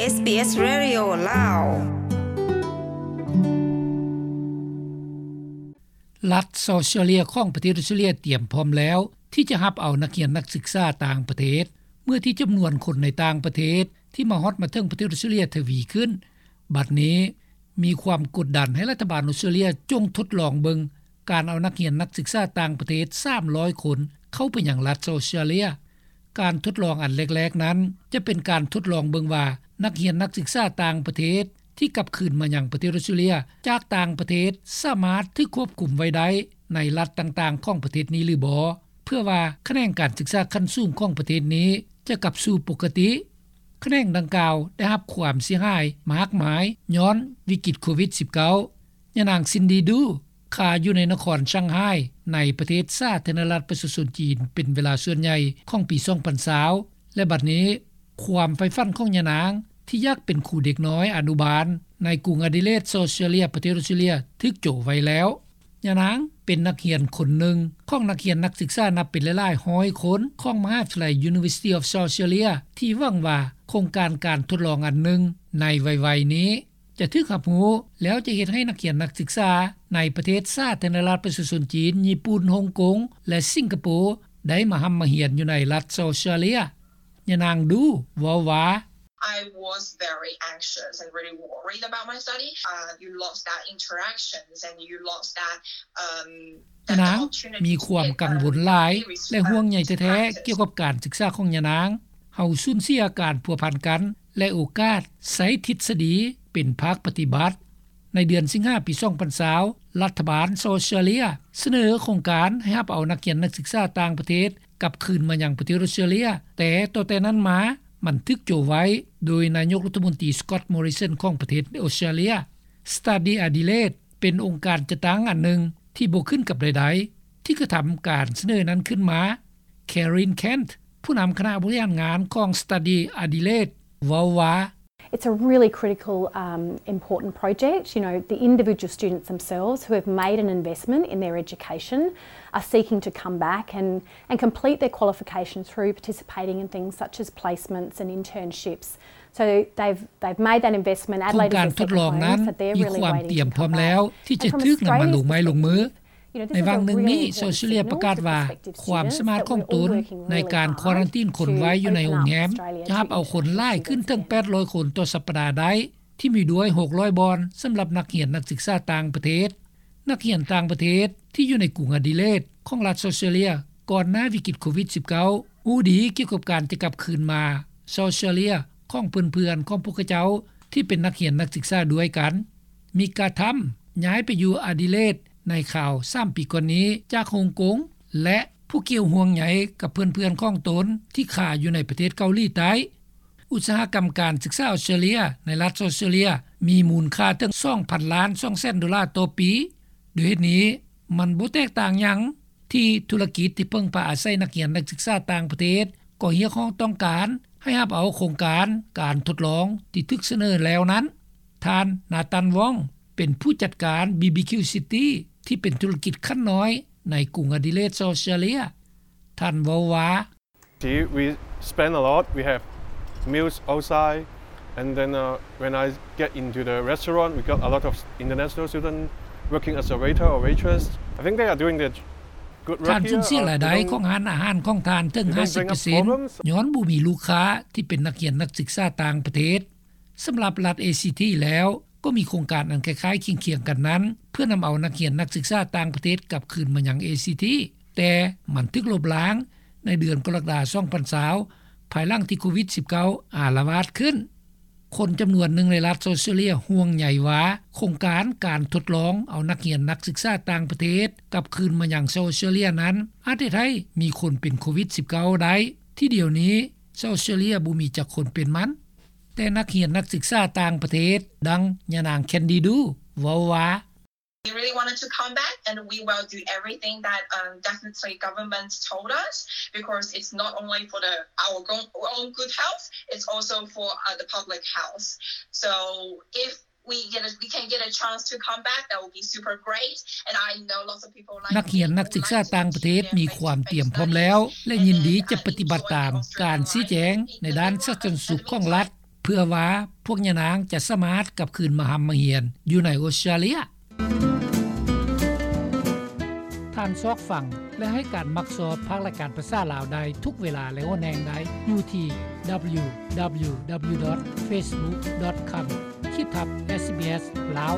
ເອສບີເອສ Radio ລາວ. ລັດເຊົາເຊຍເລຍຂອງປະເທດອົດສະຕຣາເລຍຕຽມພ້ອມແລ້ວທີ່ຈະຮັບເອົານັກຮຽນນັກສຶກສາຕ່າງປະເທດ ເມື່ອທີ່ຈຳນວນຄົນໃນຕ່າງປະເທດທີ່ມາຮອດມາເຖິງປະເທດອົດສະຕຣາເລຍທະວີຂຶ້ນ. ບັດນີ້ມີຄວາມກົດດັນໃຫ້ລັດຖະບານອົດສະຕຣາເລຍຈົ່ງທົດລອງເບິ່ງການເອົານັກຮຽນນັກສຶກສາຕ່າງປະເທດສາມຮ້ອຍຄົນເຂົ້າໄປຍັງລັດເຊົາເຊຍເລຍ. ການທົດລອງອັນແລກໆນັ້ນ ຈະເປັນການທົດລອງເບິ່ງວ່າ ນັກຮຽນນັກສຶກສາຕ່າງປະເທດທີ່ກັບຄືນມາຍັງປະເທດອົດສະຕຣາເລຍຈາກຕ່າງປະເທດ ສາມາດຖືກຄວບຄຸມໄວ້ໄດ້ໃນລັດຕ່າງໆຂອງປະເທດນີ້ຫຼືບໍ່ ເພື່ອວ່າຂະແໜງການສຶກສາຂັ້ນສູງຂອງປະເທດນີ້ຈະກັບສູ່ປົກກະຕິ. ຂະແໜງດັ່ງກ່າວໄດ້ຮັບຄວາມເສຍຫາຍມາກມາຍຍ້ອນວິກິດໂຄວິດສິບເກົ້າ. ຍານາງ ຊິນດີ ດູ ຄາຢູ່ໃນນະຄອນຊ່າງໄຮ ໃນປະເທດສາທາລະນະລັດປະຊາຊົນຈີນ ເປັນເວລາສ່ວນໃຫຍ່ຂອງປີສອງພັນຊາວ ແລະ ບັດນີ້ຄວາມໃຝ່ຝັນຂອງຍານາງທີ່ຢາກເປັນຄູເດັກນ້ອຍອະນຸບານໃນກຸງອະດີເລດ ເຊົາເຊຍເລຍ ປະເທດອົດສະຕຣາເລຍ ຖືກໂຈະໄວ້ແລ້ວ. ຍານາງເປັນນັກຮຽນຄົນໜຶ່ງຂອງນັກຮຽນນັກສຶກສານັບເປັນຫຼາຍໆຮ້ອຍຄົນຂອງມະຫາວິທະຍາໄລ University of South Australia ທີ່ຫວັງວ່າໂຄງການການທົດລອງອັນໜຶ່ງໃນໄວໆນີ້ ຈະຖືກຮັບຮູ້ ແລ້ວຈະເຮັດໃຫ້ນັກຮຽນນັກສຶກສາໃນປະເທດສາທາລະນະລັດປະຊາຊົນຈີນ, ຍີ່ປຸ່ນ, ຮົງກົງ ແລະ ສິງກະໂປ ໄດ້ມາຮ່ຳມາຮຽນຢູ່ໃນລັດເຊົາເຊຍເລຍ. ຍານາງ ດູ ເວົ້າວ່າ, I was very anxious and really worried about my study. Uh, you lost that interactions and you lost that, um, ຍານາງມີຄວາມກັງວົນຫຼາຍ ແລະ ຫ່ວງໃຍແທ້ໆກ່ຽວກັບການສຶກສາຂອງຍານາງ. ເຮົາສູນເສຍການພົວພັນກັນ ແລະ ໂອກາດໃຊ້ທິດສະດີເປັນພາກປະຕິບັດ. ໃນເດືອນສິງຫາປີສອງພັນຊາວ ລັດຖະບານເຊົາເຊຍເລຍສະເໜີໂຄງການໃຫ້ຮັບເອົານັກຮຽນນັກສຶກສາຕ່າງປະເທດກັບຄືນມາຍັງປະເທດອົດສະຕຣາເລຍ, ແຕ່ຕໍ່ແຕ່ນັ້ນມາມັນຖືກໂຈະໄວ້ໂດຍນາຍົກລັດຖະມົນຕີ ສະກອດ ມໍຣິສັນ ຂອງປະເທດອົດສະຕຣາເລຍ. Study Adelaide ເປັນອົງການຈັດຕັ້ງອັນໜຶ່ງທີ່ບໍ່ຂຶ້ນກັບໃດໆ ທີ່ກະທຳການສະເໜີນັ້ນຂຶ້ນມາ. Karen Kent ຜູ້ນຳຄະນະບໍລິຫານງານຂອງ Study Adelaide ເວົ້າວ່າ, It's a really critical, um, important project. You know, the individual students themselves who have made an investment in their education are seeking to come back and, and complete their qualification through participating in things such as placements and internships. So they've, they've made that investment. Adelaide is their second home, so they're really waiting to come back. ໂຄງການທົດລອງນັ້ນມີຄວາມຕຽມພ້ອມແລ້ວທີ່ຈະຖືກນຳມາລົງໄມ້ລົງມື. ໃນຫວ່າງໜຶ່ງນີ້ ເຊົາເຊຍເລຍປະກາດວ່າ ຄວາມສາມາດຂອງຕົນໃນການຄວາຣັນຕີນຄົນໄວ້ຢູ່ໃນໂຮງແຮມ ຈະຮັບເອົາຄົນຫຼາຍຂຶ້ນເຖິງແປດຮ້ອຍຄົນຕໍ່ສັບປະດາໄດ້, ທີ່ມີດ້ວຍຫົກຮ້ອຍບ່ອນສຳລັບນັກຮຽນນັກສຶກສາຕ່າງປະເທດ. ນັກຮຽນຕ່າງປະເທດທີ່ຢູ່ໃນກຸງອະດີເລດຂອງລັດເຊົາເຊຍເລຍ ກ່ອນໜ້າວິກິດໂຄວິດສິບເກົ້າ ຮູ້ດີກ່ຽວກັບການຈະກັບຄືນມາເຊົາເຊຍເລຍຂອງເພື່ອນໆຂອງພວກເຂົາເຈົ້າທີ່ເປັນນັກຮຽນນັກສຶກສາດ້ວຍກັນ. ມິກາ ທຳ ຍ້າຍໄປຢູ່ອະດີເລດໃນຄາວສາມປີກ່ອນນີ້ຈາກຮົງກົງ ແລະ ຜູ້ກ່ຽວຫ່ວງໃຍກັບເພື່ອນໆຂອງຕົນທີ່ຄາຢູ່ໃນປະເທດເກົາຫຼີໃຕ້. ອຸດສາຫະກຳການສຶກສາອົດສະຕຣາເລຍໃນລັດເຊົາເຊຍເລຍ ມີມູນຄ່າເຖິງສອງພັນລ້ານສອງແສນໂດລາຕໍ່ປີ. ດ້ວຍເຫດນີ້ ມັນບໍ່ແຕກຕ່າງຫຍັງ ທີ່ທຸລະກິດທີ່ເພິ່ງພາອາໄສນັກຮຽນນັກສຶກສາຕ່າງປະເທດ ກໍຮຽກຮ້ອງຕ້ອງການໃຫ້ຮັບເອົາໂຄງການການທົດລອງທີ່ຖືກສະເໜີແລ້ວນັ້ນ. ທ່ານ ນາຕັນ ວອງ ເປັນຜູ້ຈັດການ ບີບີຄິວ ຊິຕີ ທີ່ເປັນທຸລະກິດຂັ້ນນ້ອຍໃນກຸງອະດີເລດ ເຊົາເຊຍເລຍ. ທ່ານເວົ້າວ່າ, See, we spend a lot. We have meals outside. And then, uh, when I get into the restaurant, we got a lot of international students working as a waiter or waitress. I think they are doing their good work here. ທ່ານສູນເສຍລາຍໄດ້ຂອງຮ້ານອາຫານຂອງທ່ານເຖິງຫ້າສິບເປີເຊັນ ຍ້ອນບໍ່ມີລູກຄ້າທີ່ເປັນນັກຮຽນນັກສຶກສາຕ່າງປະເທດ. ສຳລັບລັດ ເອຊີທີ ແລ້ວ ກໍມີໂຄງການອັນຄ້າຍໆຄຽງໆກັນນັ້ນ ເພື່ອນຳເອົານັກຮຽນນັກສຶກສາຕ່າງປະເທດກັບຄືນມາຍັງ ເອຊີທີ ແຕ່ມັນຖືກລົບລ້າງໃນເດືອນກໍລະກະດາ ສອງພັນຊາວ ພາຍຫຼັງທີ່ໂຄວິດສິບເກົ້າ ອາລະວາດຂຶ້ນ. ຄົນຈຳນວນໜຶ່ງໃນລັດເຊົາເຊຍເລຍຫ່ວງໃຍວ່າ ໂຄງການການທົດລອງເອົານັກຮຽນນັກສຶກສາຕ່າງປະເທດກັບຄືນມາຍັງເຊົາເຊຍເລຍນັ້ນ ອາດເຮັດໃຫ້ມີຄົນເປັນໂຄວິດສິບເກົ້າໄດ້ ທີ່ດຽວນີ້ເຊົາເຊຍເລຍບໍ່ມີຈັກຄົນເປັນມັນ. ແຕ່ນັກຮຽນນັກສຶກສາຕ່າງປະເທດ ດັ່ງຍານາງ ແຄນດີ ດູ ເວົ້າວ່າ, We really wanted to come back, and we will do everything that, um, definitely government told us, because it's not only for the, our go-, own good health, it's also for, uh, the public health. So if we get a, we can get a chance to come back, that would be super great. And I know lots of people like me who like to teach in face-to-face learning. ນັກຮຽນນັກສຶກສາຕ່າງປະເທດມີຄວາມຕຽມພ້ອມແລ້ວ ແລະ ຍິນດີຈະປະຕິບັດຕາມການຊີ້ແຈງໃນດ້ານສາທາລະນະສຸກຂອງລັດ. ເພື່ອວ່າພວກຍານາງຈະສາມາດກັບຄືນມາຮ່ຳມາຮຽນຢູ່ໃນອົດສະຕຣາເລຍ. ທ່ານຊອກຟັງ ແລະ ໃຫ້ການມັກຊອບພາກລາຍການພາສາລາວໄດ້ທຸກເວລາ ແລະ ຫົວແຮງໄດ້ຢູ່ທີ່ www.facebook.com/sbslao